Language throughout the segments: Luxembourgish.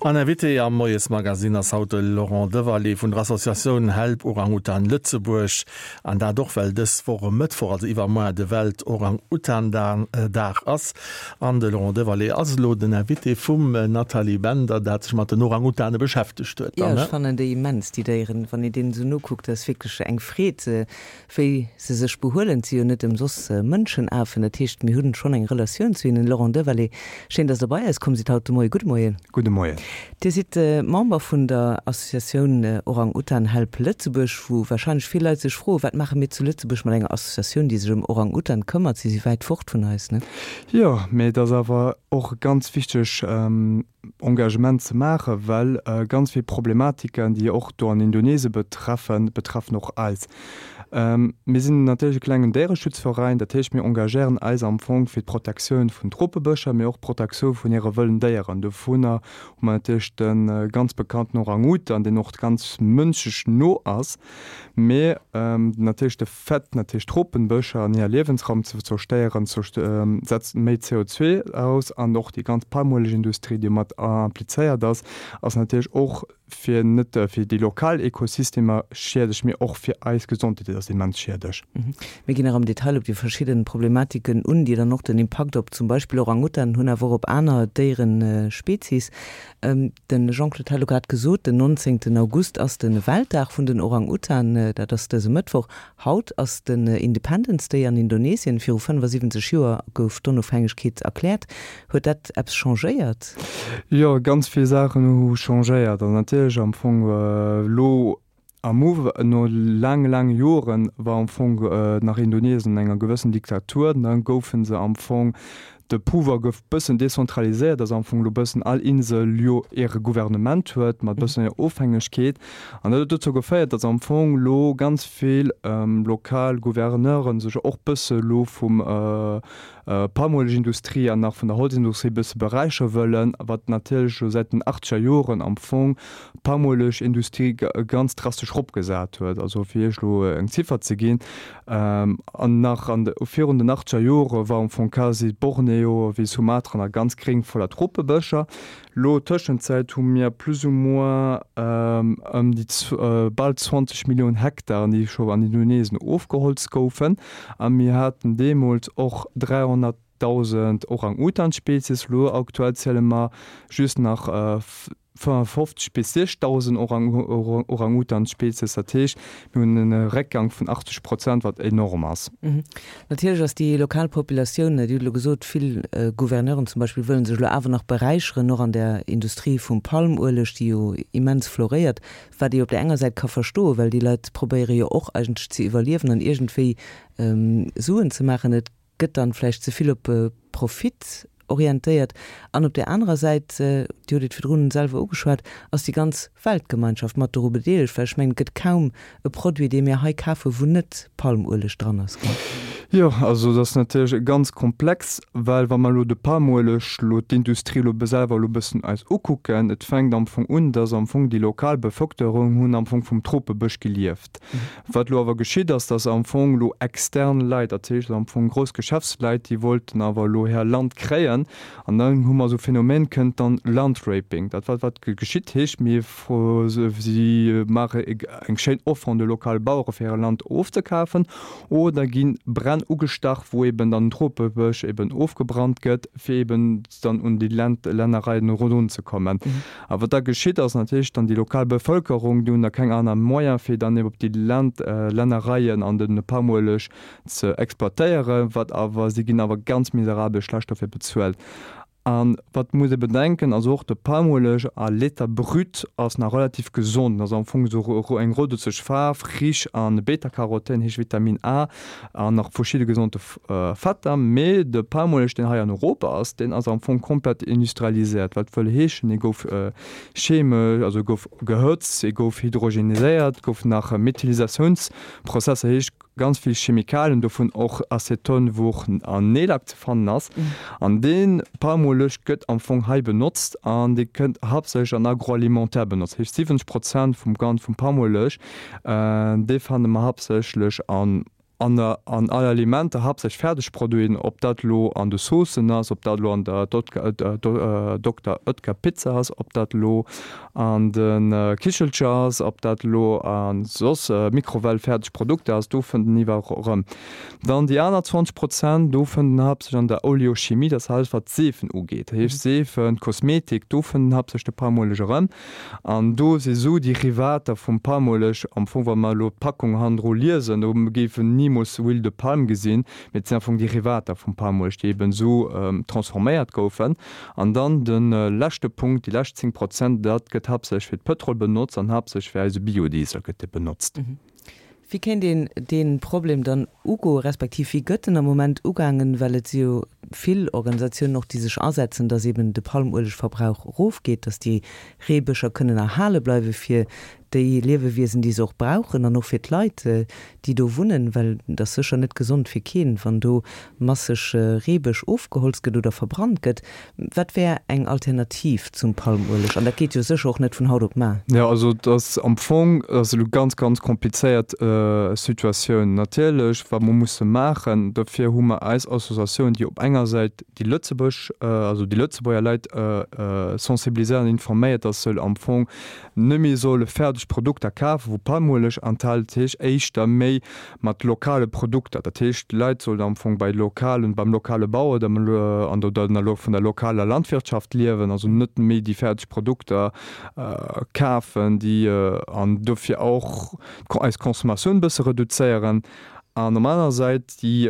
An Invité am Moiesmagazin ass haut de Laurent Devalle vun der Associatioun Help Orang-Utan Lëtzebuerg. An dat och well dës Woch e Mëttwoch, also iwwermoar, de Welt-Orang-Utan-Dag ass. An de Laurent Devalle ass elo den Invité vum Nathalie Bender, dat sech mat den Orang-Utane beschäftegt huet. Jo, ech fannen déi immens, déi Déieren. Wann een deenen esou nokuckt, dat ass wierklech eng Freed. Wéi se sech behuelen, et si jo net ëmsoss Mënschenafen, dat heescht, mir hunn schonn eng Relatioun zu hinnen. Laurent Devalle, schéin, dass Der bei eis komm sidd haut de Moien. Gudde Moien. Gudde Moien. Dir sidd Member vun der Associatioun Orang-Utan Help Lëtzebuerg, wou warscheinlech vill Leit sech froen, Wat maache mir zu Lëtzebuerg mat enger Associatioun, déi sech ëm Orang-Utan këmmert? Si si wäit fort vun eis, ne? Jo, mee et ass awer och e ganz wichteg Engagement ze maachen, well ganz vill Problematiken, déi och do an Indonesien betreffen, betreffen och eis. Mir sinn natierlech e klengen Déiereschutzveräin, dat heescht mir engagéieren eis am Fong fir d'Protektioun vun Tropebëscher, mee och d'Protektioun vun hire wëllen Déieren. Dovunner hu mer natierlech de ganz bekannten Orang-Utan, deen och ganz mënschlech no ass, mee natierlech de Fait natierlech d'Tropenbëscher an hir Liewensraum ze zerstéieren, setzt méi CO2 aus an och déi ganz Palmuelegindustrie, déi mat implizéiert ass, ass natierlech och fir net fir déi lokal Ekosystemer schiedlech, mee och fir eis Gesondheet ass immens schiedlech. Mir ginn nach am Detail op déi verschidden Problematiken un, déi dann och den Impakt op zum Beispill Orang-Utan hunn, awer och op aner Déierespezies. De Jean-Claude hat elo grad gesot, den 19 August ass de Weltdag vun den Orang-Utan, dat ass dëse Mëttwoch. Haut ass den Independence Day an Indonesien. Viru 75 Joer gouf d'Onofhängegkeet erkläert. Huet dat eppes changéiert? Jo, ganz vill Saachen hu changéiert. An natierlech am Fong elo Am Uw, no laange laange Joren, war am Fong nach Indonesien an enger gewëssen Diktatur. Dann goufen se am Fong, de Pouvoir gouf bëssen dezentraliséiert, dass am Fong elo bëssen all Insel jo hire Gouvernement huet, mat bëssen hir Ofhängegkeet. An dat huet dozou geféiert, dass am Fong elo ganz vill lokal Gouverneuren sech och bësse elo vum Palmuelegindustrie an nach vun der Holzindustrie bësse beräichere wëllen, wat natierlech elo säit den achtzeger Joren am Fong d'Palmuelegindustrie ganz drastesch eropgesat huet. Also fir Iech elo eng Ziffer ze ginn, an nach an de virun den achtzeger Jore war am Fong quasi Borneo wéi Sumatra nach ganz gréng voller Tropebëscher. Lo Tëschenzäit hu mir plus ou moins ëm déi bal 20 Milliounen Hektaren, déi scho an Indonesien ofgeholzt goufen. A mir haten deemools och 300.000 Orang-Utan-Spezies. Lo aktuell ziele mer just nach 55 bis 60.000 Orang-Utan-Spezies. Dat heescht, mir hunn e Réckgang vun 80 Prozent, wat enorm ass. Natierlech ass déi lokal Populatioun, Dir hutt elo gesot, vill Gouverneuren zum Beispill wëllen sech elo awer nach beräicheren, och an der Industrie vum Palmueleg, déi jo immens floréiert, wat ee op där enger Säit ka verstoen, well déi Leit probéiere jo och eigentlech ze iwwerliewen an iergendwéi Suen ze maachen. Et gëtt dann vläicht ze vill op Profit orientéiert. An op där anerer Säit, Dir hutt et virdrun selwer ugeschwat, ass déi ganz Weltgemeinschaft mat doru bedeelegt, well ech mengen, et gëtt kaum e Produit, dee mir hei kafen, wou net Palmueleg dran ass, gell? Jo, also dat ass natierlech ganz komplex, well wa mer elo de Palmueleg, elo d'Industrie elo selwer elo e bëssen eis ukucken, et fänkt am Fong un, dass am Fong déi lokal Bevëlkerung hunn am Fong vum Tropebësch gelieft. Wat elo awer geschitt ass, dass am Fong elo extern Leit, dat heescht am Fong grouss Geschäftsleit, déi wollten awer elo hir Land kréien an dann hu mer esou Phänomen, kënnt dann Landraping. Dat wat wat geschitt heescht, mir si maache eng schéin Offer un de lokale Bauere fir hir Land ofzekafen oder gi Bränn ugestach, wou eben dann den Tropebësch eben ofgebrannt gëtt, fir eben dann un déi Lännereien erunzekommen. A wat da geschitt, ass natierlech dann déi lokal Bevëlkerung, déi hunn da keng aner Moyen, fir dann eben op déi Lännereien an de Palmueleg ze exploitéieren, wat awer, si ginn awer ganz miserabel schlecht dofir bezuelt. A wat muss ee bedenken, also och de Palmueleg à l'état brut ass nach relativ gesond, ass am Fong esou eng rodezeg Faarf, rich an Beta-Carotène, heescht Vitamin A, an nach verschidde gesonde Fetter, mee de Palmueleg deen hei an Europa ass, deen ass am Fong komplett industrialiséiert, wat wëll heeschen, e gouf chemesch, also e gouf gehëtzt, e gouf hydrogeniséiert, gouf nach Methylisatiounsprozesser, heescht ganz vill Chemikalien, dovun och Aceton, wou och an Neelack ze fannen ass. An dee Palmueleg gëtt am Fong hei benotzt an dee kënnt haaptsächlech an Agroalimentaire benotzt, heescht 70 Prozent vum Gan vum Palmueleg, dee fanne mer haaptsächlech an. An an all Alimenter, haaptsächlech Fäerdegproduiten, ob dat elo an de Saucen ass, ob dat elo an der Dokter Oetker Pizza ass, ob dat elo an de Kichelcher ass, ob dat elo a soss Mikrowell-fäerdeg Produkter ass, do fënnt en iwwerall erëm. Dann déi aner 20 Prozent, do fënnt en haaptsächlech an der Oleochimie, dat ass alles wat d'Seefen ugeet, dat heescht Seefen, Kosmetik, do fënnt en haaptsächlech de Palmueleg erëm. An do si sou Derivater vum Palmueleg, am Fong wa mer elo d'Packung hannendru liesen, do géif en nimools Huile de palme gesinn, mee et sinn am Fong Derivater vum Palmueleg, déi eben esou transforméiert goufen. An dann de leschte Punkt, déi lescht 10 Prozent, dat gëtt haaptsächlech fir d'Pëtrol benotzt an haaptsächlech fir eise Biodiesel gëtt dee benotzt. Wéi kéint een dee Problem dann ugoen, respektiv wéi gëtt en am Moment ugaangen, well et si jo vill Organisatiounen och, déi sech asetzen, datt eben de Palmuelegverbrauch erofgeet, datt déi Reebëscher kënnen erhale bleiwe fir déi Liewewiesen, déi se och brauchen an och fir d'Leit, déi do wunnen, well et ass sécher net gesond fir keen, wann do masseg Reebësch ofgeholzt gëtt oder verbrannt gëtt. Wat wär eng Alternativ zum Palmueleg? An dat geet jo sécher och net vun haut op mar. Jo, also et ass am Fong, et ass elo ganz, ganz komplizéiert Situatioun. Natierlech, wat mer musse maachen, dofir hu mer eis Associatioun, déi op enger Säit déi Lëtzebuerg, also déi Lëtzebuerger Leit sensibiliséiert an informéiert, dass se am Fong net méi solle fäerdeg Produkter kafen, wou Palmueleg enthält, dat heescht éischter méi mat lokale Produkter. Dat heescht, d'Leit sollen am Fong bei lokalen, beim lokale Bauer oder an der, oder vun der lokaler Landwirtschaft liewen, also net méi déi fäerdeg Produkter kafen, déi an dofir och eis Consommatioun e bësse reduzéieren. An op aner Säit déi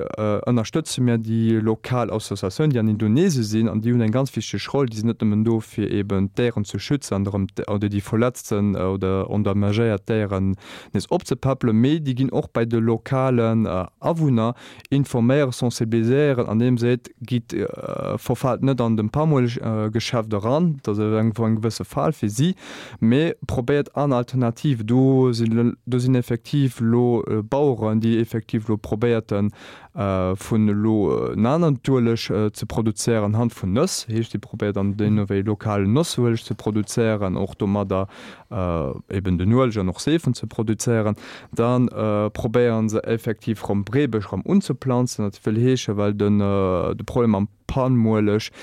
ënnerstëtze mir déi lokal Associatioun, déi an Indonesien sinn, an déi hunn eng ganz wichteg Roll. Déi sinn net nëmmen do, fir eben d'Déieren ze schützen an erëm oder déi verletzten oder endommagéiert Déieren nees opzepäppelen, mee déi ginn och bei de lokalen Awunner informéieren, sensibiliséieren, andeem se seet, Gitt, verfaalt net an dem Palmueleggeschäft eran, dat ass eng gewësse Fal fir si, Mee probéiert aner Alternative. Do sinn, do sinn effektiv elo Baueren, déi effektiv elo probéierten, vun elo en aneren Ueleg ze produzéieren anhand vun Nëss. Heescht, déi probéiert an deemno wéi lokalen Nossueleg ze produzéieren, och domadder eben den Ueleg an och Seefen ze produzéieren. Da probéiere se effektiv erëm Breebesch erëm unzeplanzen. Dat wëll heeschen, well den, de Problem am Palmueleg,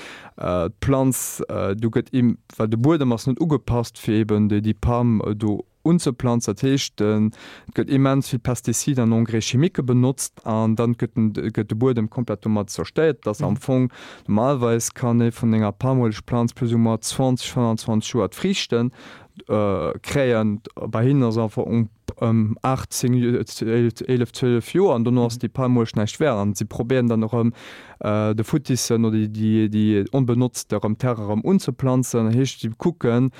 d'Planz do gëtt im, well de Buedem ass net ugepasst fir eben déi déi Palm do unzeplanzen. Dat heescht et gëtt immens vill Pestizide an Engrais chimique benotzt an dann gëtt den gëtt de Buedem komplett domat zerstéiert. Et ass am Fong normalerweis kann ee vun enger Palmuelegplanz plus ou moins 20, 25 Joer d'Friichten kréien. Bei hinnen ass einfach ëm 8, 10, 11, 12 Joer an dono ass déi Palmueleg näischt wäert an si probéieren dann erëm de futtissen oder déi déi onbenotzte erëm Terre erëm unzeplanzen. Dat heescht si kucken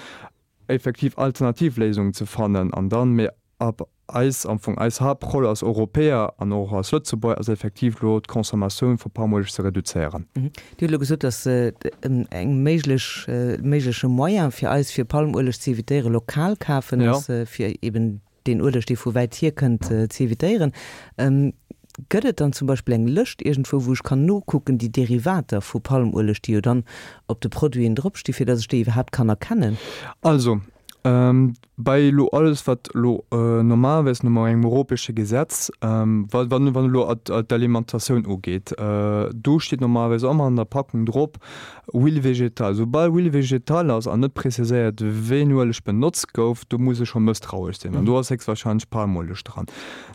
effektiv alternativ Léisungen ze fannen an dann, mee ab eis am Fong eis Haaptroll als Europäer an och als Lëtzebuerger ass effektiv elo d'Consommatioun vu Palmueleg ze reduzéieren. Dir hutt elo gesot, datt eng méiglech, méigleche Moyen fir eis, fir Palmueleg ze evitéieren, lokal kafen ass, fir eben deen Ueleg, dee vu wäit hier kënnt, ze evitéieren. Gëtt et dann zum Beispill eng Lëscht iergendwou, wou ech kann nokucken, déi Derivater vu Palmueleg, déi jo dann op de Produiten dropsti fir datt ech déi iwwerhaapt kann erkennen? Also, Bei elo alles wat elo normalerweis no engem europäesche Gesetz, wa wann elo d'Alimentatioun ugeet, do steet normalerweis ëmmer an der Packung drop Huile végétale. Soubal Huile végétale ass an net preziséiert wéi en Ueleg benotzt gouf, do muss ee scho mësstrauesch sinn an do ass héchstwahrscheinlech Palmueleg dran.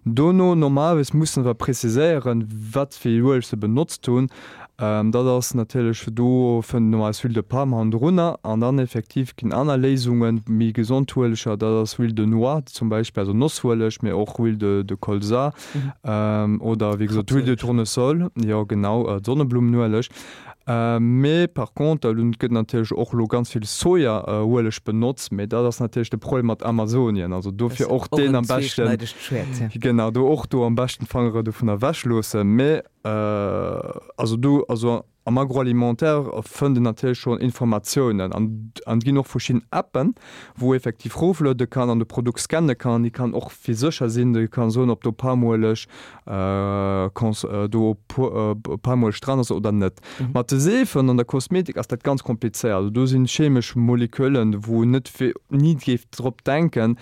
Dono normalerweis mussen se awer preziséieren, wat fir Ueleg se benotzt hunn. Dat ass natierlech, do fënnt een eis Huile de palme hannendrunner an dann effektiv ginn aner Léisungen, méi gesond Ueleger, dat ass Huile de noix zum Beispill, also Nossueleg, mee och Huile de de Colza oder wéi gesot Huile de tournesol, jo genau, Sonneblummenueleg. Mee par contre, elo gëtt natierlech och elo ganz vill Sojaueleg benotzt, mee dat ass natierlech de Problem mat Amazonien, also dofir och deen am beschten, genau, do och do am beschten d'Fangere dovun ewech loossen. Mee Also do, also am Agroalimentaire fënnt een natierlech schonn Informatiounen an an et ginn och verschidden Appen, wou effektiv rofluede kann an de Produkt scanne kann an déi kann och fir sécher sinn, déi kann soen, ob do Palmueleg cons do Palmueleg dran ass oder net. Mat de Seefen an der Kosmetik ass dat ganz komplizéiert. Also do sinn chemesch Moleküllen, wou net ni géif drop denken.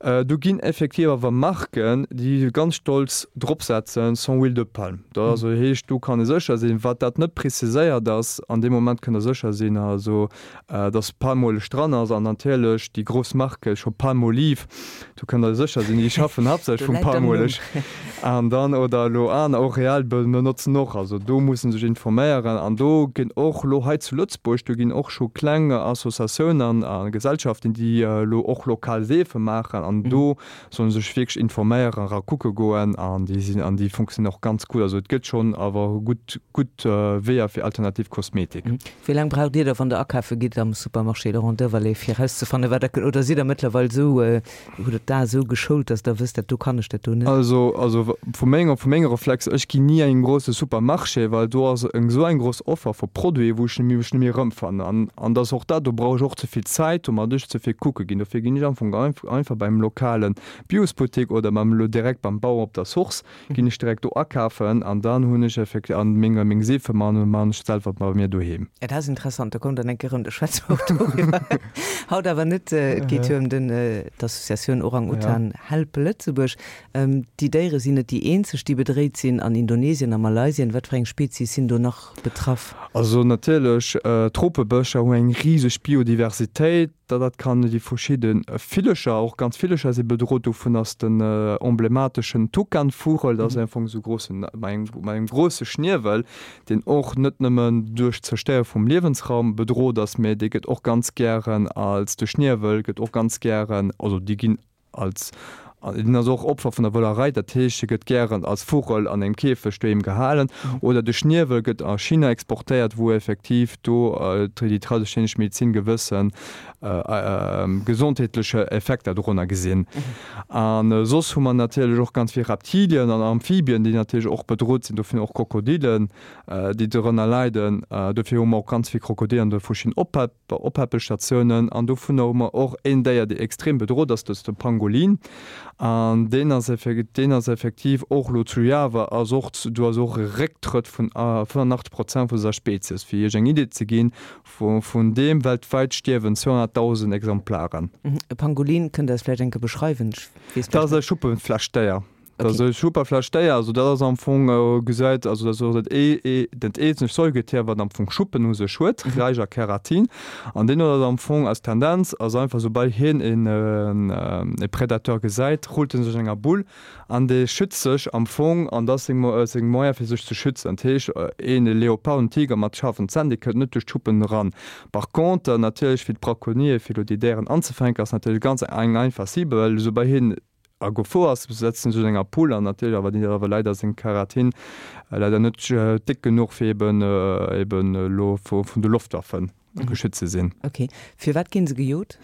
Do ginn effektiv awer Marken, déi ganz stolz drop setzen, sans huile de palme. Dat also heescht, do kann ee sécher sinn, wat dat net preziséiert ass, an deem Moment kënnt Der sécher sinn, also dass Palmueleg dran ass. An natierlech déi grouss Marke scho Palmolive, do kënnt Der sécher sinn, déi schaffen haaptsächlech vum Palmueleg. An dann, oder elo aner, och L'Oréal benotzen och. Also do muss ee sech informéieren. An do ginn och elo hei zu Lëtzebuerg, do ginn och scho kleng Associatiounen a Gesellschaften, déi elo och lokal Seefe maachen. An do soll ee sech wierklech informéieren, era kucke goen. An déi sinn, an déi funktionéieren och ganz gutt. Also et gëtt schonn awer gutt, gutt Weeër fir alternativ Kosmetik. Wéi laang braucht Dir da, wann Der akafe gitt am Supermarché Laurent Devalet, fir erauszefannen, wat Der, oder sidd Der mëttlerweil esou, hutt Der d'Ae esou geschoult, dass Der wësst, dat do kann ech, dat do net? Also, also vu menger, vu menge Reflexer, ech ginn ni an engem grousse Supermarché, well do ass eng esou eng grouss Offer vu Produiten, wou ech mech net méi erëmfannen. An, an dass och dat, do brauch ech och ze vill Zäit, domat ech ze vill kucke ginn. Dofir ginn ech am Fong einfach beim lokale Biosbuttek oder beim, direkt beim Bauer op der Source. Ginn ech direkt do akafen an dann hunn ech effektiv an meng meng Seefe man man ech selwer bei mir doheem. Dat ass interessant, do kommt dann eng Kéier erëm, do schwätze mer och doriwwer. Haut awer net, et geet jo ëm den d'Associatioun Orang-Utan Help Lëtzebuerg. Déi Déiere sinn net déi eenzeg, déi bedréit sinn. An Indonesien a Malaysien, wat fir eng Spezies sinn do nach betraff? Also natierlech, d'Tropebëscher hu eng riseg Biodiversitéit. Da dat kann déi verschidde Villecher, och ganz Villecher si bedrot. Dovun ass den emblemateschen Tukanvugel, dat ass am Fong esou grossen, mat engem mat engem grosse Schniewel, deen och net nëmmen duerch d'Zerstéiere vum Liewensraum bedrot ass, mä dee gëtt och ganz gären als, de Schniewel gëtt och ganz gären, also déi ginn Als, en ass och Opfer vun der Wëllerei, dat heescht, e gëtt gären als Vugel an engem Käfeg doheem gehalen. Oder de Schniewel gëtt a China exportéiert, wou effektiv do déi traditionesch Medezin gewësse gesondheetleche Effekter dorunner gesinn. A soss hu mer natierlech och ganz vill Reptilien an Amphibien, déi natierlech och bedrot sinn, dovun och Krokodillen, déi dorënner leiden. Dofir hu mer och ganz vill Krokodiller an de verschiddenen Oppäppelstatiounen. An dovunner hu mer och een Déier, dee extrem bedrot ass, dat ass de Pangolin. An deen ass deen ass effektiv och elo zu Java ass och do ass och e Récktrëtt vun 85 Prozent vu senger Spezies. Fir Iech eng Idee ze ginn, vun deem weltwäit stierwen 200.000 Exemplaren. E Pangolin, kënnt Der eis vläicht eng Kéier beschreiwen? Ech weess Dat ass e Schuppenflechtdéier. Dat ass e Schupperflechtdéier, also dat ass am Fong gesäit, also dat ass och dat ee dat eenzegt Säugetier, wat am Fong Schuppen u sech huet, räich a Keratin. An deen huet am Fong als Tendenz, ass einfach soubal hien een e Predateur gesäit, rullt en sech an enger Bull an dee schützt sech am Fong an dat ass seng seng Moyen fir sech ze schützen. Dat heescht een e Leopard, en Tiger mat schaarfen Zänn, dee kënnt net duerch d'Schuppen eran. Par contre natierlech fir d'Braconnier, fir elo déi Déieren anzefänken, ass natierlech ganz eng einfach Cible, well soubal hien a Gefor ass, setzen sech an enger Pool an natierlech awer déi awer leider seng Keratin leider net déck genuch fir eben eben elo vun de Loftwaffen geschützt ze sinn. Ok, firwat ginn se gejot?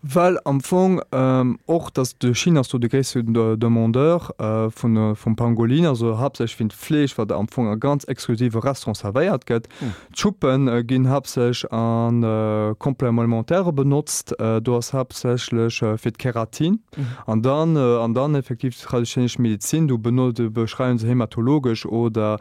Well am Fong och dass de China ass do de gréisste Demandeur vun vum Pangolin, also haaptsächlech fir d'Fleesch wat am Fong a ganz exklusive Restaurante servéiert gëtt. D'Schuppen ginn haaptsächlech a Complémentaire benotzt, do ass haaptsächlech fir d'Keratin an dann an dann effektiv d'traditionesch Medizin, do beschreiwen se hämatologesch oder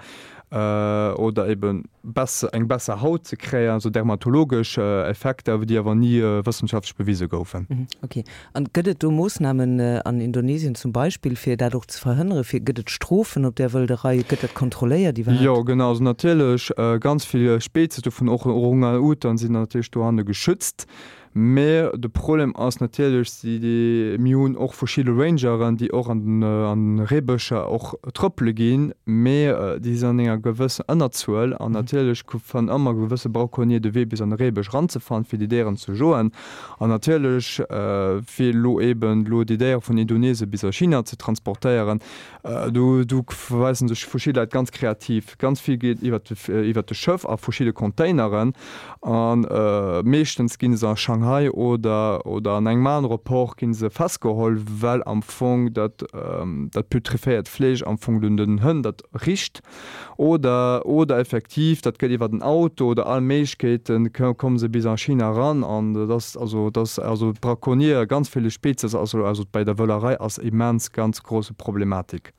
oder eben besser eng besser Haut ze kréien, also dermatologesch Effekter, déi awer ni wëssenschaftlech bewise goufen. Ok. An gëtt et do Moossnamen an Indonesien zum Beispill, fir dat och ze verhënneren? Fir, gëtt et Strofen op där Wëlderei? Gëtt dat kontrolléiert iwwerhaapt? Jo, genau. Also natierlech ganz vill Spezies, dovun och Orang-Utan, sinn natierlech dohanne geschützt. Mä de Problem ass natierlech, si déi, mir hunn och verschidde Rangeren, déi och an den an de Reebëscher och trëppele ginn, mä déi sinn an enger gewëssen Ënnerzuel an natierlech fannen ëmmer gewësse Braconnier de Wee bis an de Reebësch eranzefannen, fir déi Déieren ze joen. An natierlech, fir elo eeben elo déi Déiere vun Indonesien bis a China ze transportéieren, do do weisen sech verschidde Leit ganz kreativ. Ganz vill geet iwwert de iwwert de Schëff a verschidde Containeren a meeschtens gi se a Shanghai oder oder an engem anere Port gi se festgeholl, well am Fong dat dat putreféiert Fleesch am Fong un den Hënn dat richt. Oder oder effektiv. effektiv, dat gëtt iwwer den Auto oder all Méiglechkeeten, komme se bis a China eran. An dat ass also, dat ass also d'Braconniere, ganz ville Spezies, also also bei der Wëllerei ass immens ganz grosse Problematik.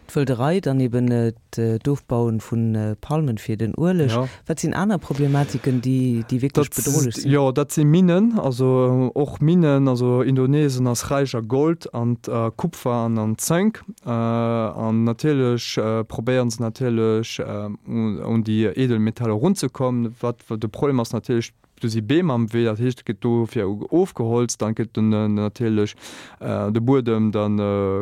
D'Wëlderei, dann eben d'Ofbauen vu Palmen fir den Ueleg. Wat sinn aner Problematiken, déi déi wierklech bedrohlech sinn? Jo, dat si Minnen, also och Minnen. Also Indonesien ass räich a Gold an a Kupfer an an Zënk. An natierlech probéieren se natierlech un déi Edelmetaller erunzekommen. Wat de Problem ass natierlech, Do si Beem am Wee, dat heescht, et gëtt dofir ofgeholzt, dann gëtt den natierlech de Buedem dann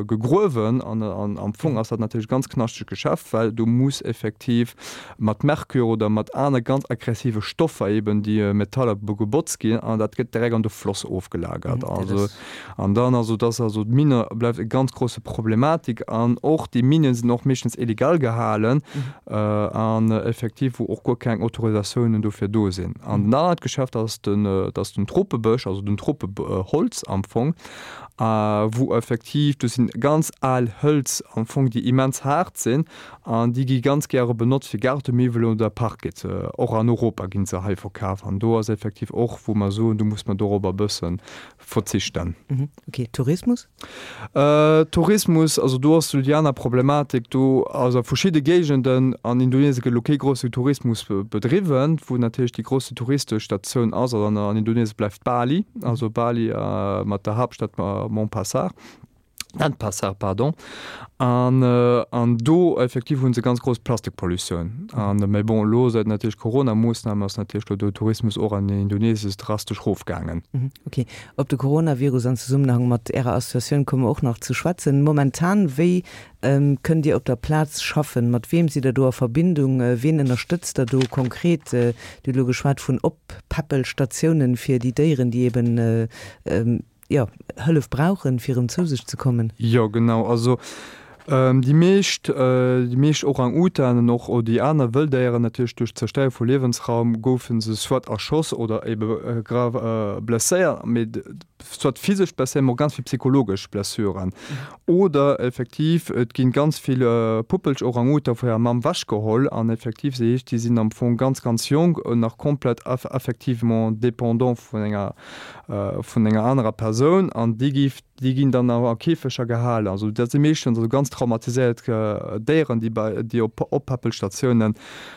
gegruewen an am Fong ass dat natierlech e ganz knaschtegt Geschäft, well do muss effektiv mat Merkur oder mat aner ganz aggressive Stoffer eben déi Metaller gebotzt ginn an dat gëtt direkt an de Floss ofgelagert. Also an dann also dass also d'Minne bleift e ganz grosse Problematik an och déi Minen sinn och meeschtens illegal gehalen. an effektiv wou och guer keng Autorisatiounen dofir do sinn. An den anert Geschäft ass den, dat ass den Tropebësch, also den Tropeholz am Fong, wou effektiv, do sinn ganz al Hëlz am Fong, déi immens haart sinn an déi gi ganz gäre benotzt fir Gaartemiwwelen oder Parquet. Och an Europa gi se hei verkaf an do ass effektiv och, wou mer soen, do muss mer dorobber e bësse verzichten. Ok, Tourismus? Tourismus, also do ass déi aner Problematik, do also a verschidde Géigenden an Indonesien gëtt elo kee grousse Tourismus bedriwwen, wou natierlech déi grousse touristesch Statioun ass, also an Indonesien bleift Bali, also Bali mat der Haaptstad Montpassar, Denpasar, pardon, an an do effektiv hu se ganz grouss Plastikpollutioun an, mä bon elo säit natierlech Corona-Moossnamen ass natierlech elo de Tourismus och an Indonesien drastesch rofgaangen. Ok, Op de Coronavirus an Zesummenhang mat Ärer Associatioun komme mer och nach ze schwätzen. Momentan, wéi kënnt Dir op der Plaz schaffen? Mat weem sidd Der do a Verbindung? Ween ënnerstëtzt Der do konkret? Dir hutt elo geschwat vun Oppäppelstatiounen fir déi Déieren, déi eben, jo, Hëllef brauchen, fir erëm zou sech ze kommen. Jo, genau. Also déi meescht, déi meescht Orang-Utanen, och déi aner Wëlldéieren natierlech, duerch d'Zerstéiere vu Liewensraum goufe se soit erschoss oder ebe grave blesséiert, mee soit physesch blesséiert, mee och ganz vill psychologesch Blessuren. Oder effektiv, et ginn ganz vill Puppelch Orang-Utan vu hirer Mamm wechgeholl an effektiv, se heescht, déi sinn am Fong ganz, ganz jonk an nach komplett affectivement dépendant vun enger, vun enger anerer Persoun an déi gi Déi ginn dann a Käfeger gehalen. Also dat si meeschtens also ganz traumatiséiert Déieren, déi bei déi op Oppäppelstatiounen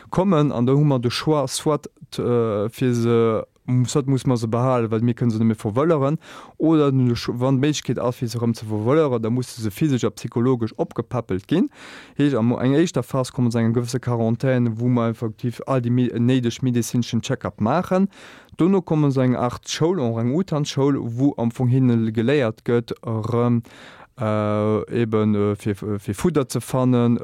kommen. An do hu mer de Choix, soit fir se, soit musse mer se behalen, well mir kënne se net méi verwëlleren, oder wann d'Méiglechkeet ass fir se erëm ze verwëlleren, da musse se physesch a psychologesch opgepäppelt ginn. Heescht, an enger éischter Phas komme se an eng gewësse Quarantän, wou mer effektiv all déi néideg medezineschen Check-up maachen. Dono kommen se eng Art Schoul, Orang-Utan-Schoul, wou am Fong hinne geléiert gëtt, erëm ebe fir Fudder ze fannen,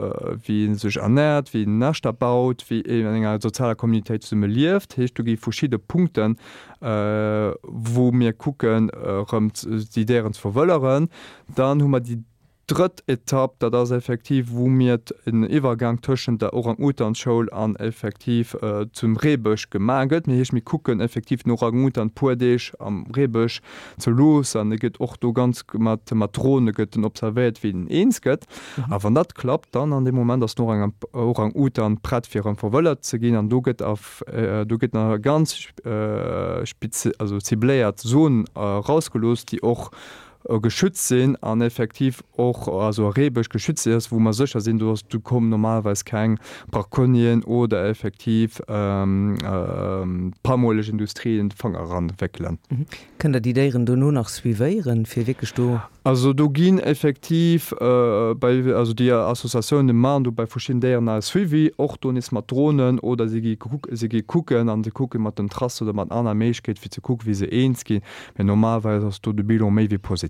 wéi ee sech ernäert, wéi een Näschter baut, wéi een an enger sozialer Communautéit zesumme lieft. Heescht, do gi verschidde Punkten, wou mir kucken, erëm déi Déieren ze verwëlleren. Dann hu mer déi Drëtt Etapp, dat ass effektiv, wou mir en Iwwergang tëschent der Orang-Utan-Schoul an effektiv zum Reebësch gemaach gëtt. Mir heescht, mir kucken effektiv den Orang-Utan puer Deeg am Reebësch ze loossen an e gëtt och do ganz mat mat Drone gëtt en observéiert, wéi en eens gëtt. A wann dat klappt, dann an deem Moment ass den Orang-Utan prett fir erëm verwëllert ze ginn an do gëtt a do gëtt nach e ganz spezi also cibléiert Zon erausgelooss, déi och geschützt sinn an effektiv och also e Reebësch geschützt ass, wou mer sécher sinn, do ass, do kommen normalerweis keng Braconnieren oder effektiv Palmuelegindustrie de Fanger eranwéckelen. Kënnt Der déi Déieren dono nach suivéieren, fir wierklech do. Also do ginn effektiv bei, also déi Associatiounen maachen do bei verschidden Déieren nach e Suivi, och do nees mat Dronen oder si gi si gi kucken an se kucke mat den Trassen oder mat aner Méiglechkeete fir ze kucken, wéi se eens ginn. Mee normalerweis ass do de Bilan méi wéi positiv.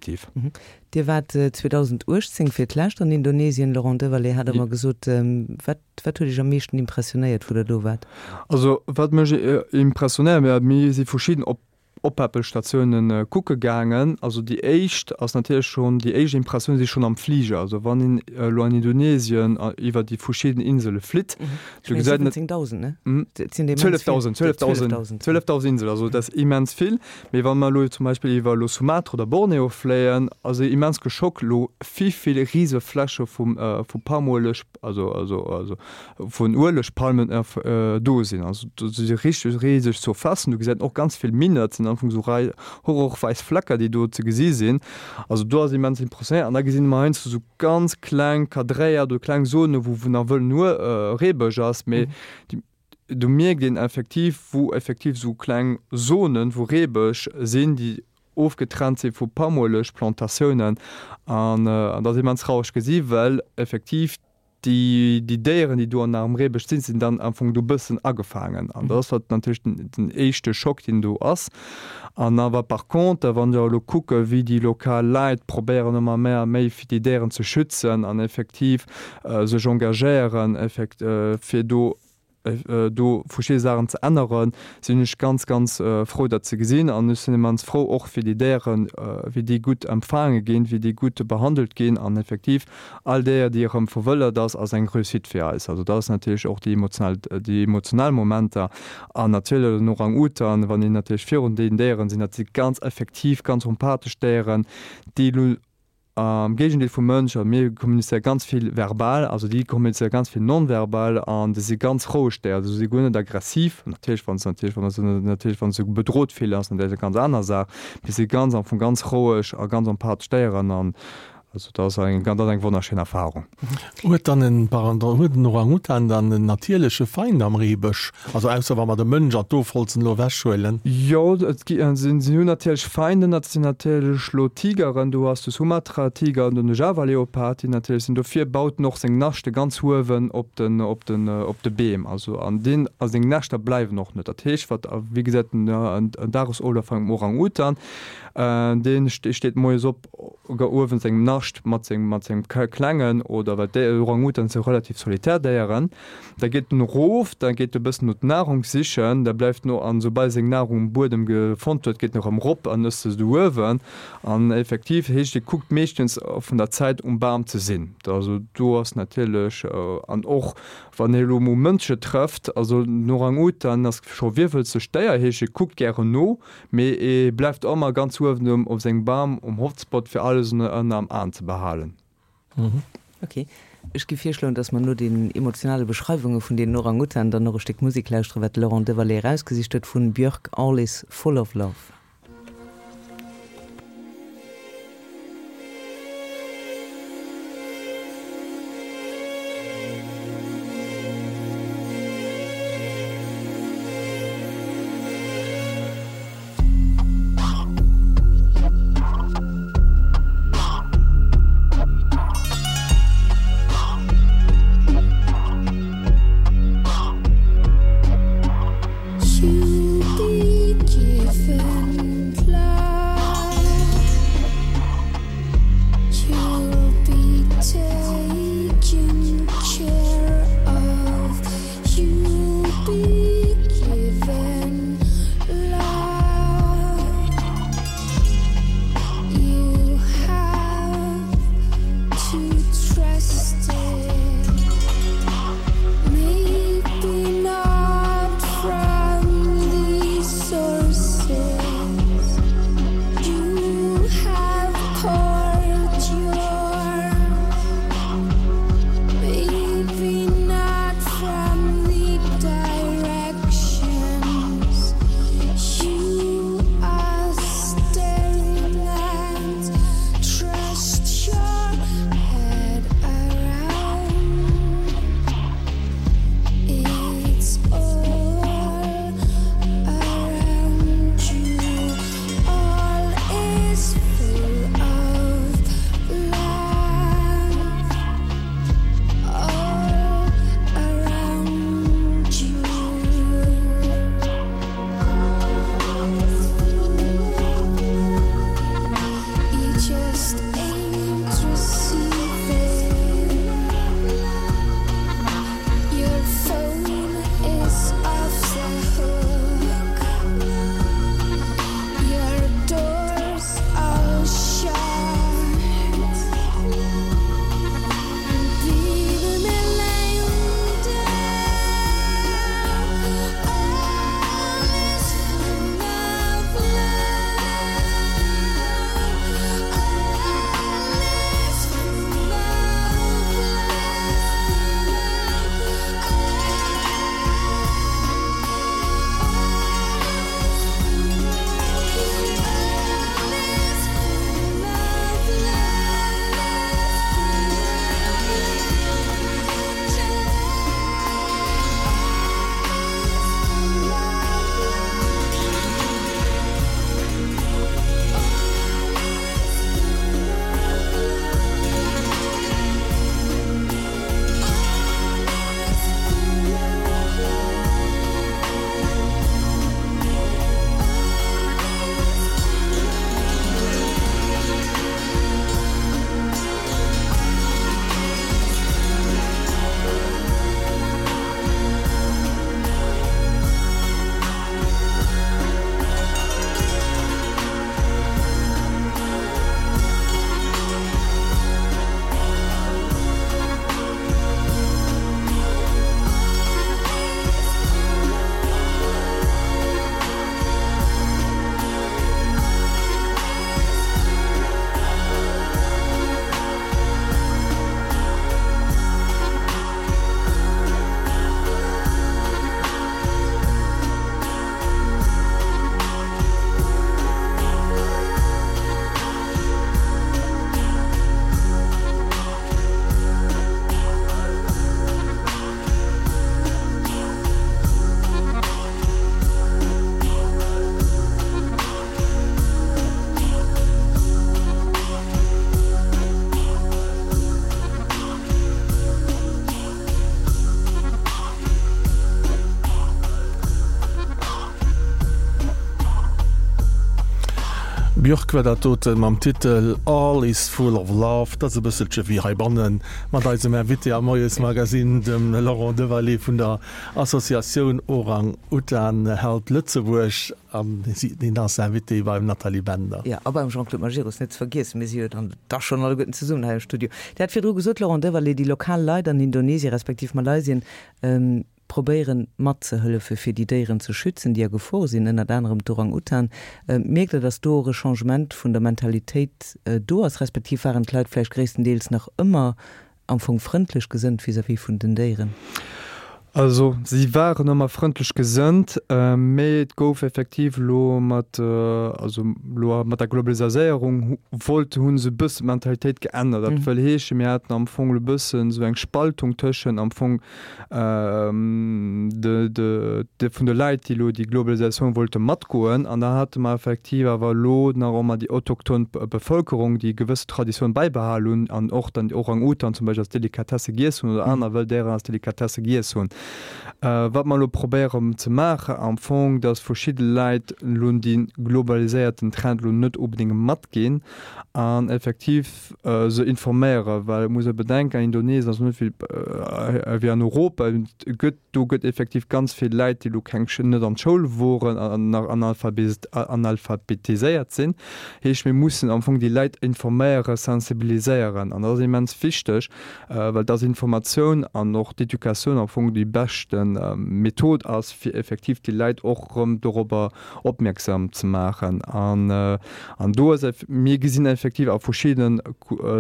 Dir waart 2018 fir d'lescht an Indonesien, Laurent Devalet hat der mer gesot. Wat, wat huet Iech am meeschten impressionéiert, wou Der do waart? Also wat mech impressionéiert, mir si verschidden op. Oppäppelstatiounen kucke gaangen. Also déi éischt ass natierlech schonn, déi éischt Impressioun si schonn am Fliger. Also wann een elo an Indonesien iwwer déi verschidden Insele flitt, do gesäit een. 17.000, ne? Et sinn immens vill. 12.000, 12.000, 12.000 Inselen, also dat ass immens vill. Mee wa mer elo zum Beispill iwwer elo Sumatra oder Borneo fléien, ass ee immens geschockt elo wéi vill rise Fläche vum vu Palmueleg, also also also vun Uelegpalmen do sinn. Also do si richteg riseg Surfacen. Do gesäit een och ganz vill Minen. Dat sinn am Fong esou Rei horrorwäiss Flecker, déi do ze gesi sinn. Also do ass immens impressionnéiert. An da gesinn mer heiansdo esou ganz kleng kadréiert oder kleng Zonen, wou wou nach wëllen Reebësch ass, mee déi do mierkt een effektiv, wou effektiv esou kleng Zonen, wou Reebësch sinn, déi ofgetrennt si vu Palmuelegplantatiounen. An dat ass immens traureg gesi well effektiv déi déi Déieren, déi do an am Reebësch sinn, sinn dann am Fong do bëssen agefaangen. An dat ass wat natierlech den den éischte Schock, deen do ass. An awer par contre, wann ech awer elo kucke wéi déi lokal Leit probéieren ëmmer méi a méi fir déi Déieren ze schützen an effektiv sech engagéieren effekt fir do do verschidde Saachen ze änneren, sinn ech ganz, ganz frou dat ze gesinn. An ech sinn immens frou och fir déi Déieren, wéi déi gutt empfaange ginn, wéi déi gutt behandelt ginn. An effektiv all Déier, déi erëm verwëldert ass, ass eng Réussite fir eis. Also dat ass natierlech och déi emotional, déi emotional Momenter. An natierlech den Orang-Utan, wann een natierlech virun deenen Déieren sinn, dat si ganz effektiv, ganz empathesch Déieren, déi elo Am Géigendeel vum Mënsch, also mir kommunizéiere ganz vill verbal, also déi kommunizéiere ganz vill non-verbal an déi si ganz roueg Déier, also si guer net aggressiv. Natierlech wann se natierlech wann se natierlech wann se bedrot fillen ass natierlech eng ganz aner Saach, mee si ganz am Fong ganz roueg a ganz empathesch Déieren an also dat ass eng dat ass eng wonnerschéin Erfarung. Huet dann en, pardon, huet en Orang-Utan dann en natierleche Feind am Reebësch? Also ausser wa mer de Mënsch an d'Ofholzen elo ewechhuelen. Jo, et gi, si hunn natierlech Feinden, dat sinn natierlech elo Tigeren, do ass de Sumatra-Tiger an den Java-Leopard, déi natierlech sinn. Dofir baut en och seng Naschte ganz uewen op den, op den, op de Beem. Also an deen, a seng Näschter bleiwen och net. Dat heescht, wat, a wéi gesät den Dagesoflaf vun engem Orang-Utan, dee steet moies op uewen sengem Nascht mat sengem, mat sengem Klengen oder, well d'Orang-Utans si relativ solitär Déieren. Da geet en erof, da geet e bëssen no d'Nahrung sichen, da bleift en an soubal e seng Nahrung um Buedem gefonnt huet, geet en erëm erop an ësst se do uewen. An effektiv heescht, e kuckt meeschtens vun der Zäit um Bam ze sinn. Also do ass natierlech, an och wann e elo mol Mënsche trëfft, also den Orang-Utan ass scho virwëlzegt Déier, heescht e kuckt gären no, mee e bleift ëmmer ganz uewen um op sengem Bam um Hotspot fir alles ënner am Aen ze behalen. Ok. Ech gi virschloen, dass mer no den emotionale Beschreiwunge vun deenen Orang-Utan dann och e Stéck Musek lauschteren, wat de Laurent Devalet erausgesicht huet, vun Björk, All is full of love. Björk war dat doten mam Titel All is full of love. Dat ass e bësselche wéi heibannen mat eisem Invité am Moiesmagazine, dem Laurent Devalet vun der Associatioun Orang Utan Help Lëtzebuerg. An hien ass Invité beim Nathalie Bender. Jo, a beim Jean-Claude Majerus net ze vergiessen. Mir si jo dann da schonn alleguerten zesummen hei am Studio. Dir hat virdru gesot, Laurent Devalet, déi lokal Leit an Indonesien respektiv Malaysien, probéieren matzehëllefe fir déi Déieren ze schützen, déi a Gefor sinn, ënnert anerem d'Orang-Utan. Mierkt Der, datt do och e Changement vun der Mentalitéit do ass, respektiv waren d'Leit vläicht gréisstendeels nach ëmmer am Fong frëndlech gesënnt vis-à-vis vun den Déieren? Also si waren ëmmer frëndlech gesënnt, mee et gouf effektiv elo mat, also elo mat der Globalisaséierung wollt, hu se e bëssen d'Mentalitéit geännert. Dat wëll heeschen, mir haten am Fong elo e bëssen esou eng Spaltung tëschent am Fong de, de, de vun de Leit, déi elo déi Globalisatioun wollte matgoen, an da hate mer effektiv awer elo nach ëmmer déi autochthon Bevëlkerung, déi gewësse Traditioun bäibehal hunn an och dann déi Orang-Utan zum Beispill als Delikatesse giess hunn oder aner wëll Déieren als Delikatesse giess hunn. Wat mer elo probéieren ze maachen am Fong, dass verschidde Leit elo dee globaliséierten Trend elo net onbedéngt matginn an effektiv, se informéieren, well et muss e bedenken, an Indonesien ass net wéi an Europa, et gëtt, do gëtt effektiv ganz vill Läit, déi elo keng, net an d'Schoul woren an nach analphabetiséiert sinn. Heescht, mir mussen am Fong déi Läit informéieren, sensibiliséieren an dat ass immens wichteg, well dass Informatioun an och d'Educatioun am Fong déi beschte Method ass, fir effektiv déi Läit och erëm dorobber opmierksam ze maachen. An, an do ass, mir gesinn effektiv a verschiddenen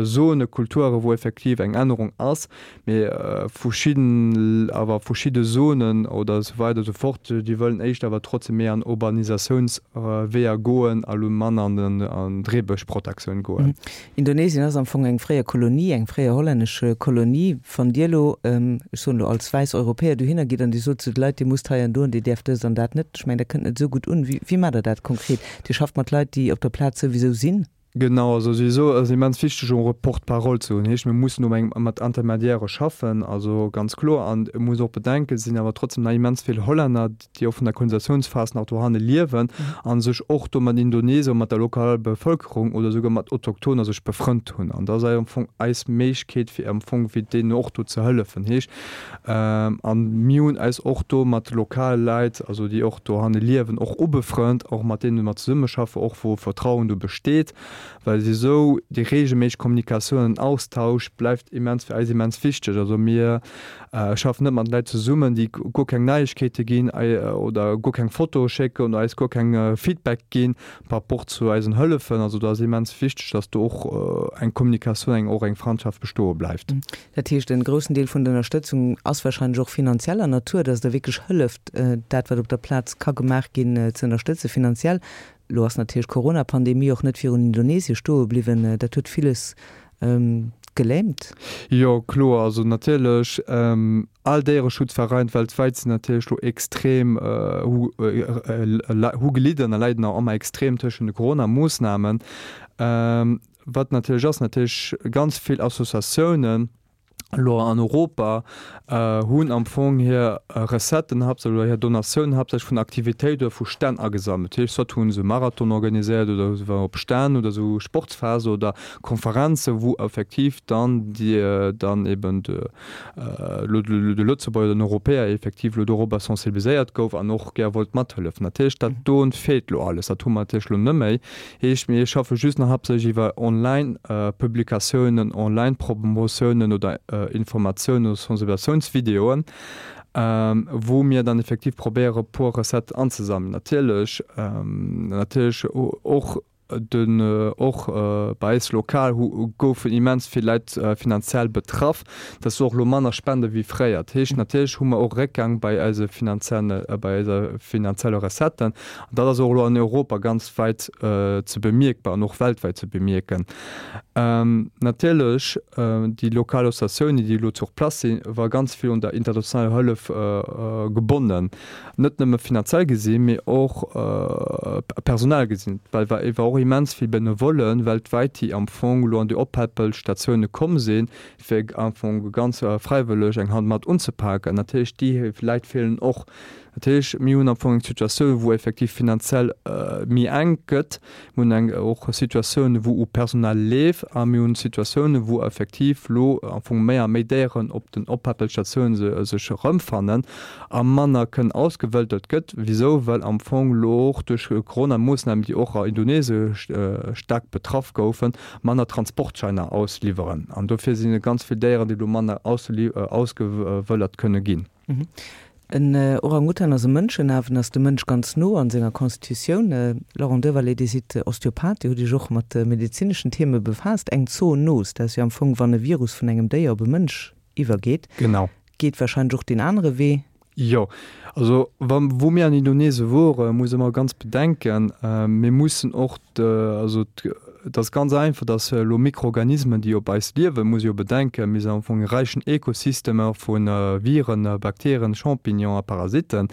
Zone Kulture wou effektiv eng Ännerung ass, mee verschidden, awer verschidde Zonen oder esou weider esou fort, déi wëllen éischter awer trotzdem méi an Urbanisatiounsweeër goen a lo manner an den, an d'Reebëschprotektioun goen. Indonesien ass am Fong eng fréier Kolonie, eng fréier hollännesch Kolonie. Wann Dir elo, ech soen elo als wäiss Europäer dohinner gitt an Dir sot zu de Leit, Dir musst hei an do an Dir däerft dëst an dat net, ech mengen, dat kënnt net esou gutt un. Wéi maacht Der dat konkret? Dir schafft mat Leit, déi op der Plaz souwisou sinn? Genau, also souwisou ass immens wichteg och e Porte-parole ze hunn. Heescht, mir mussen do eng mat Intermediairë schaffen, also ganz kloer. An et muss och bedenken, et sinn awer trotzdem nach immens vill Hollänner, déi och vun der Kolonisatiounsphas nach dohanne liewen a sech och do mat Indonesier, mat der lokaler Bevëlkerung oder souguer mat Autochtoner sech befrënnt hunn. An dat ass am Fong eis Méiglechkeet, fir am Fong fir deenen och do ze hëllefen. Heescht, a mir hunn eis och do mat lokale Leit, also déi och dohanne liewen, och ubefrënnt, och mat deene mer zesummeschaffen, och wou Vertrauen do besteet. Well esou déi reegelméisseg Kommunikatioun an Austausch bleift immens fir eis immens wichteg. Also mir schaffen net mat Leit zesummen, déi guer keng Neiegkeete ginn oder guer keng Fotoe schécken oder eis guer keng Feedback ginn par rapport zu eisen Hëllefen. Also do ass immens wichteg, datt do och eng Kommunikatioun, eng och eng Frandschaft bestoe bleift. Dat heescht, en groussen Deel vun der Ënnerstëtzung ass wahrscheinlech och finanzieller Natur, datt Der wierklech hëlleft, dat wat op der Plaz ka gemaach ginn, ze ënnerstëtze finanziell. Elo ass natierlech d'Corona-Pandemie och net virun Indonesie stoe bliwwen. Dat huet villes gelähmt. Jo, kloer. Also natierlech, all Déiereschutzverein weltwäit sinn natierlech elo extrem, hu gelidden a leiden nach ëmmer extrem tëschent de Corona-Moossnamen. Wat natierlech ass, natierlech ganz vill Associatiounen, elo an Europa hunn am Fong hir Recetten haaptsächlech oder hir Donatiounen haaptsächlech vun Aktivitéit oder vu Stänn agesammelt. Dat heescht, soit hu se Marathon organiséiert oder se waren op Stänn oder esou Sportsfester oder Konferenzen, wou effektiv dann déi dann eben de elo de Lëtzebuerger oder den Europäer effektiv elo dorobber sensibiliséiert gouf an och gär wollt mathëllefen. Dat heescht, dat do feelt elo alles, dat hu mer natierlech elo net méi. Heescht, mir schaffe just nach haaptsächlech iwwer Online-Publikatiounen, Online-Promotiounen oder Informatiounen oder Sensibilisatiounsvideoen, wou mir dann effektiv probéiere puer Recetten anzesammelen. Natierlech, natierlech och den, och bei eis lokal hu goufen immens vill Leit finanziell betraff. Dat ass och elo manner Spende wéi fréier. Dat heescht, natierlech hu mer och Réckgang bei eise finanzielle, bei eiser finanzielle Recetten. An dat ass och elo an Europa ganz wäit ze bemierkbar an och weltwäit ze bemierken. Natierlech, déi lokal Associatiounen, déi elo sur place sinn, war ganz vill un der internationaler Hëllef gebonnen, net nëmme finanziell gesinn, mee och personell gesinn, well war et war och immens vill Benevollen weltwäit, déi am Fong elo an déi Oppäppelstatioune komm sinn, fir am Fong ganz fräiwëlleg eng Hand mat unzepaken. Natierlech, déi Leit feelen och. Dat heescht, mir hunn am Fong eng Situatioun, wou effektiv finanziell méi enk gëtt. Mir hunn eng och Situatioun, wou u Personal leeft a mir hunn Situatiounen, wou effektiv elo am Fong méi a méi Déieren op den Oppäppelstatiounen sech erëmfannen a manner kënnen ausgewëldert gëtt. Wisou? Well am Fong elo och duerch Corona-Moossnamen, déi och a Indonesie staark betraff goufen, manner Transportscheiner ausliwweren. An dofir sinn et ganz vill Déieren, déi elo manner ausgewëllert kënne ginn. En Orang-Utan ass e Mënschenafen, ass dem Mënsch ganz no an senger Constitutioun. Laurent Dewalet, Dir sidd Osteopath, Dir hutt Iech och mat medezineschen Theme befaasst. Eng Zoonos, dat ass jo am Fong, wann e Virus vun engem Déier op e Mënsch iwwergeet. Genau. Geet warscheinlech och deen anere Wee. Jo, also wa wou mir an Indonesien wore muss ee mer ganz bedenken, mir mussen och also et ass ganz einfach, datt elo Mikroorganismen déi op eis liewen, muss ee jo bedenken, mir sinn am Fong e räichen Ekosystem vu Viren, Bakterien, Champignons a Parasiten.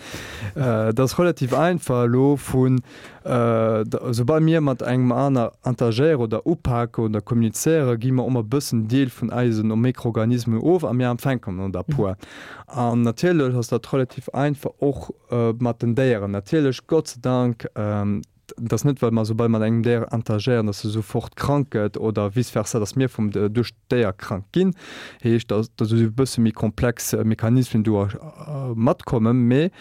Et ass relativ einfach elo vun Soubal mir mat engem aner interagéieren oder upaken oder kommunizéieren, gi mer ëmmer e bëssen Deel vun eisen Mikroorganismen of a mir empfänken der e puer. An natierlech ass dat relativ einfach och mat den Déieren. Natierlech, Gott sei Dank, et ass net, well mer soubal mat engem Déier interagéieren, dass e sofort krank gëtt oder vice versa, dass mir vum duerch d'Déier krank ginn. Heescht, dass esou e bësse méi komplex Mechanismen do matkommen. Mee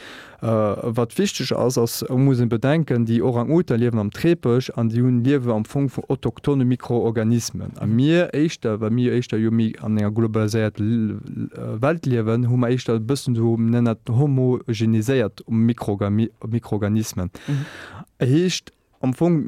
Wat wichteg ass, ass, et muss een bedenken, déi Orang-Utan liewen am Trepesch an déi hunn liewe am Fong vun autochtone Mikroorganismen. A mir éischter, well mir éischter jo méi an enger globaliséiert Welt liewen, hu mer éischter e bëssen esou, mir nennen dat homogeniséiert Mikroorganismen. Heescht am Fong,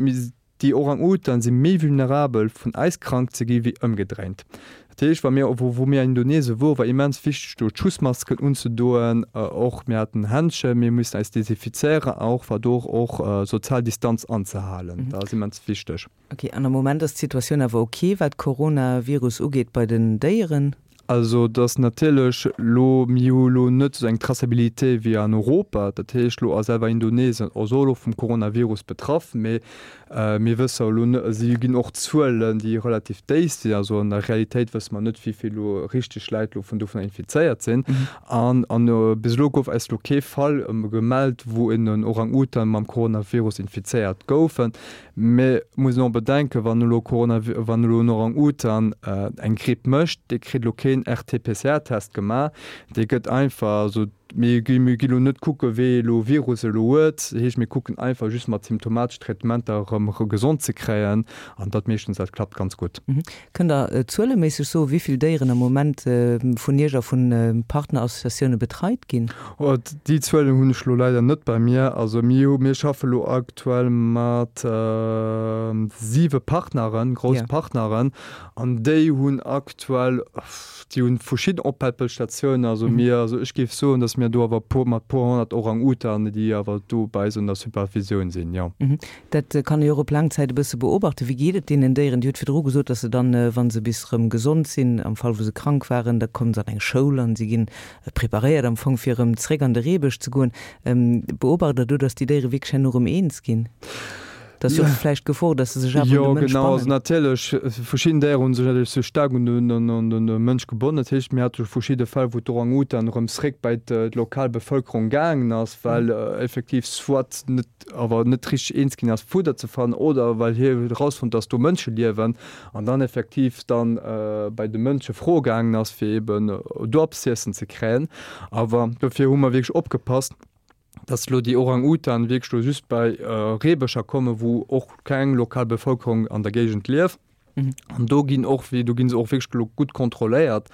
Déi Orang-Utan si méi vulnerabel vun eis krank ze gi wéi ëmgedréint. Dat heescht, wa mir, wou wou mir an Indonesien wor, war immens wichteg do d'Schussmasken unzedoen, och mir haten Händschen, mir mussen eis desinfizéieren a och war do och sozial Distanz anzehalen, dat ass immens wichteg. Ok, an am Moment ass d'Situatioun awer ok wat Coronavirus ugeet bei den Déieren? Also et ass natierlech elo, mir hu elo net esou eng Traçabilité wéi an Europa, dat heescht elo ass selwer Indonesien och elo vum Coronavirus betraff, mee mir wësse elo net, si ginn och Zuelen, déi relativ déif sinn, also an der Realitéit wësse mer net, wéi vill elo richteg Läit elo vun dovunner infizéiert sinn. An bis elo gouf eis elo kee Fall gemellt, wou en Orang-Utan mam Coronavirus infizéiert goufen. Mee muss een och bedenken, wann elo Corona, wann elo en Orang-Utan eng Gripp mécht, dee kritt elo keen RT-PCR-Test gemaach, dee gëtt einfach, also mir gi, mir gi elo net kucke wéi elo Virus elo huet, dat heescht mir kucken einfach just mat symptomatesch Traitementer erëm gesond ze kréien an dat meeschtens, dat klappt ganz gutt. Kënnt Der zueleméisseg soen, wéi vill Déieren am Moment vun Iech a vu Partnerassociatioune betreit ginn? Déi Zuelen hunn ech elo leider net bei mir. Also mir hu, mir schaffe elo aktuell mat siwe Partneren, grouss Partneren, an déi hunn aktuell, déi hunn verschidden Oppäppelstatiounen. Also mir, also ech géif soen, datt mir do awer e puer, mat puer 100 Orang-Utanen, déi awer do bei eis un der Supervisioun sinn, jo. Dat kann ee jo och op laang Zäit e bësse beobachten. Wéi geet et deenen Déieren? Dir hutt virdru gesot, datt se dann, wa se bis erëm gesond sinn, am Fall wou se krank waren, da kommen se an eng Schoul an si ginn preparéiert am Fong fir erëm zréck an de Reebësch ze goen. Beobacht Der do, datt déi Déiere wierklech herno erëm eens ginn? Dat ass jo och vläicht d'Gefor, datt se sech awer un de Mënsch bannen. Jo, genau. Also natierlech, verschidden Déiere hu sech natierlech sou staark un de Mënsch gebonnen. Dat heescht, mir hate verschidde Fäll, wou d'Orang-Utan erëm zréck bei d'lokal Bevëlkerung gaangen ass, well effektiv soit net awer net richteg eens ginn ass Fudder ze fannen oder well hie huet erausfonnt dass do Mënsche liewen an dann effektiv dann bei de Mënsche froe gaangen ass fir eben do eppes z'iessen ze kréien. Awer dofir hu mer wierklech opgepasst, dass elo déi Orang-Utan wierklech elo just bei Reebëscher kommen, wou och keng lokal Bevëlkerung an der Géigend lieft. An do ginn och, do ginn se och wierklech elo gutt kontrolléiert.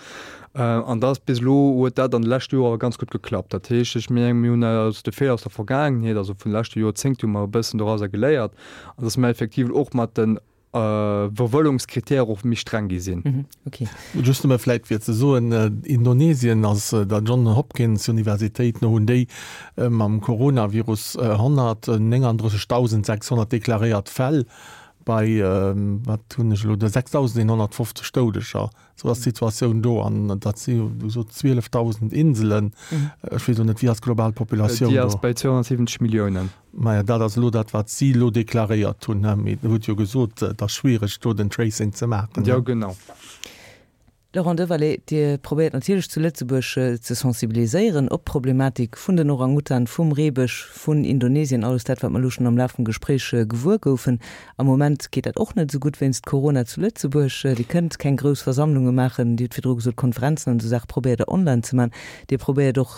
An dat ass bis elo, huet dat an de leschte Joer ganz gutt geklappt. Dat heescht, ech mengen, mir hunn aus de Feeler aus der Vergaangenheet, also vun de leschte Joerzéngte hu mer e bëssen dorauser geléiert, an datt mer effektiv och mat de Verwëllungskritäre och méi streng gi sinn. Just nëmme vläit fir ze soen, Indonesien ass der John Hopkins Universitéit no hunn déi mam Coronavirus 139.600 deklaréiert Fäll. Bei, wat hunn ech elo do, 6.150 Doudeger, esou ass d'Situatioun do. An dat si wéi gesot 12.000 Inselen. Ech weess elo net, wéi ass d'global Populatioun do? Déi ass bei 270 Milliounen. Maja, dat ass elo dat, wat si elo deklaréiert hunn. Mee Der hutt jo gesot, et ass schwiereg, do den Tracing ze maachen. Jo, genau. Laurent Devalet, Dir probéiert natierlech zu Lëtzebuerg ze sensibiliséieren op d'Problematik vun den Orang-Utan, vum Reebësch, vun Indonesien, alles dat, wat mer elo schonn am Laf vum Gespréich gewuer goufen. Am Moment geet dat och net esou gutt wéinst Corona zu Lëtzebuerg. Dir kënnt keng grouss Versammlunge maachen. Dir hutt virdru gesot, Konferenzen an esou Saache probéiert Der online ze maachen. Dir probéiert och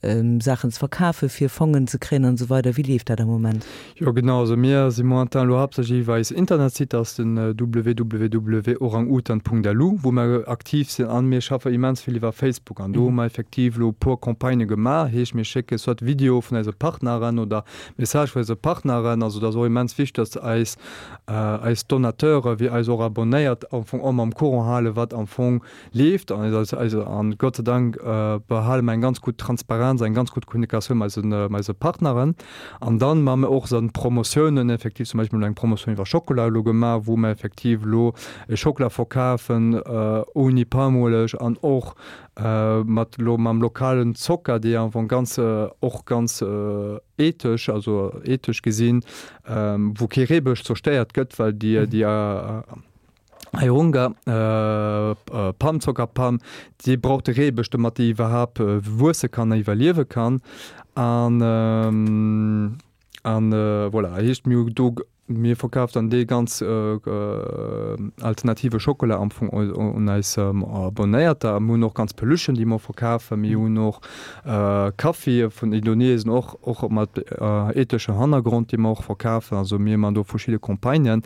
Saachen ze verkafen, fir Fongen ze kréien an esou weider. Wéi leeft dat am Moment? Jo genau, also mir si momentan elo haaptsächlech iwwer eis Internetsite, dat ass den www.orangutan.lu, wou mer aktiv sinn an mir schaffe immens vill iwwer Facebook an do hu mer effektiv elo e puer Campagnë gemaach, heescht mir schécke soit Videoe vun eise Partneren oder Messagë vun eise Partneren, also dat ass och immens wichteg, datt eis eis Donateure wéi eis och Abonéiert am Fong och mam Courant hale wat am Fong leeft an eis eis an Gott sei Dank behale mer eng ganz gutt Transparenz, eng ganz gutt Kommunikatioun mat eisen mat eise Partneren an dann maache mer och esou Promotiounen effektiv, zum Beispill elo eng Promotioun iwwer Schockela elo gemaach, wou mer effektiv elo e Schockela verkafen ouni Palmueleg an och mat elo mam lokalen Zocker, dee am Fong ganz och ganz ethesch, also ethesch gesinn, wou kee Reebësch zerstéiert gëtt, well déi déi Airunga, Palm, Zockerpalm, déi brauch de Reebësch, domat déi iwwerhaapt wuesse kann a iwwerliewe kann. An an voilà, heescht mir hu do, mir verkaf dann dee ganz alternative Schokola am Fong un eis Abonéierter. A mir hunn och ganz Peluchen, déi mer verkafen. Mir hunn och Kaffi vun Indonesien, och och mat etheschem Hannergrond, dee mer och verkafen. Also mir man do verschidde Campagnen.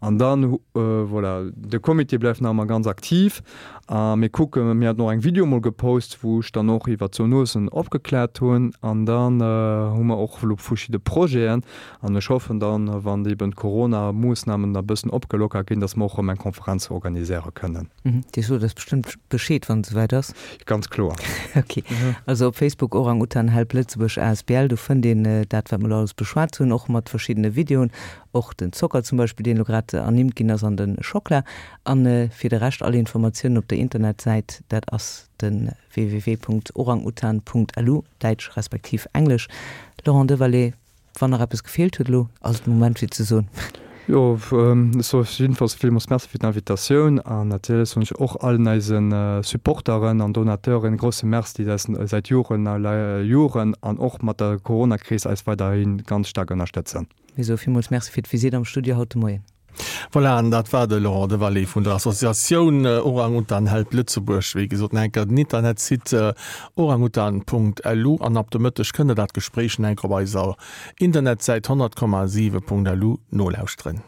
An dann, voilà, de Comité bleift nach ëmmer ganz aktiv a mir kucken, mir haten och eng Video mol gepost, wou ech dann och iwwer d'Zoonosen opgekläert hunn. An dann hu mer och elo verschidde Projeten an ech hoffen dann, wann eben d'Corona-Moossnamen da bëssen opgelockert ginn, dass mer och erëm eng Konferenz organiséiere kënnen. Dir sot eis bestëmmt Bescheed, wann et esouwäit ass. Ganz kloer. Ok. Also op Facebook Orang Utan Help Lëtzebuerg asbl, do fënnt een dat, wat mer elo alles beschwat hunn, och mat verschiddene Videoen. Och den Zocker zum Beispill, deen elo grad ernimmt ginn ass, an de Schockla. An fir de Rescht all Informatiounen op der Internetsäit, dat ass de www.orangutan.lu, däitsch respektiv englesch. Laurent Devalet, wann nach eppes gefeelt huet elo, ass et de Moment fir ze soen. Jo, ech soe jiddefalls villmools Merci fir d'Invitatioun an natierlech soen ech och allen eise Supporteren an Donateuren e grousse Merci, déi eis säit Joren a Joren an och mat der Coronakris eis weiderhi ganz staark ënnerstëtzen. Mir soe villmools Merci fir d'Visitt am Studio haut de Moien. Voilà, an dat war de Laurent Devalet vun der Associatioun Orang-Utan Help Lëtzebuerg. Wéi gesot, nach eng Kéier den Internetsite orangutan.lu an ab de Mëtteg kënnt der dat Gespréich nach eng Kéier op eiser Internetsäit 100,7.lu nolauschteren.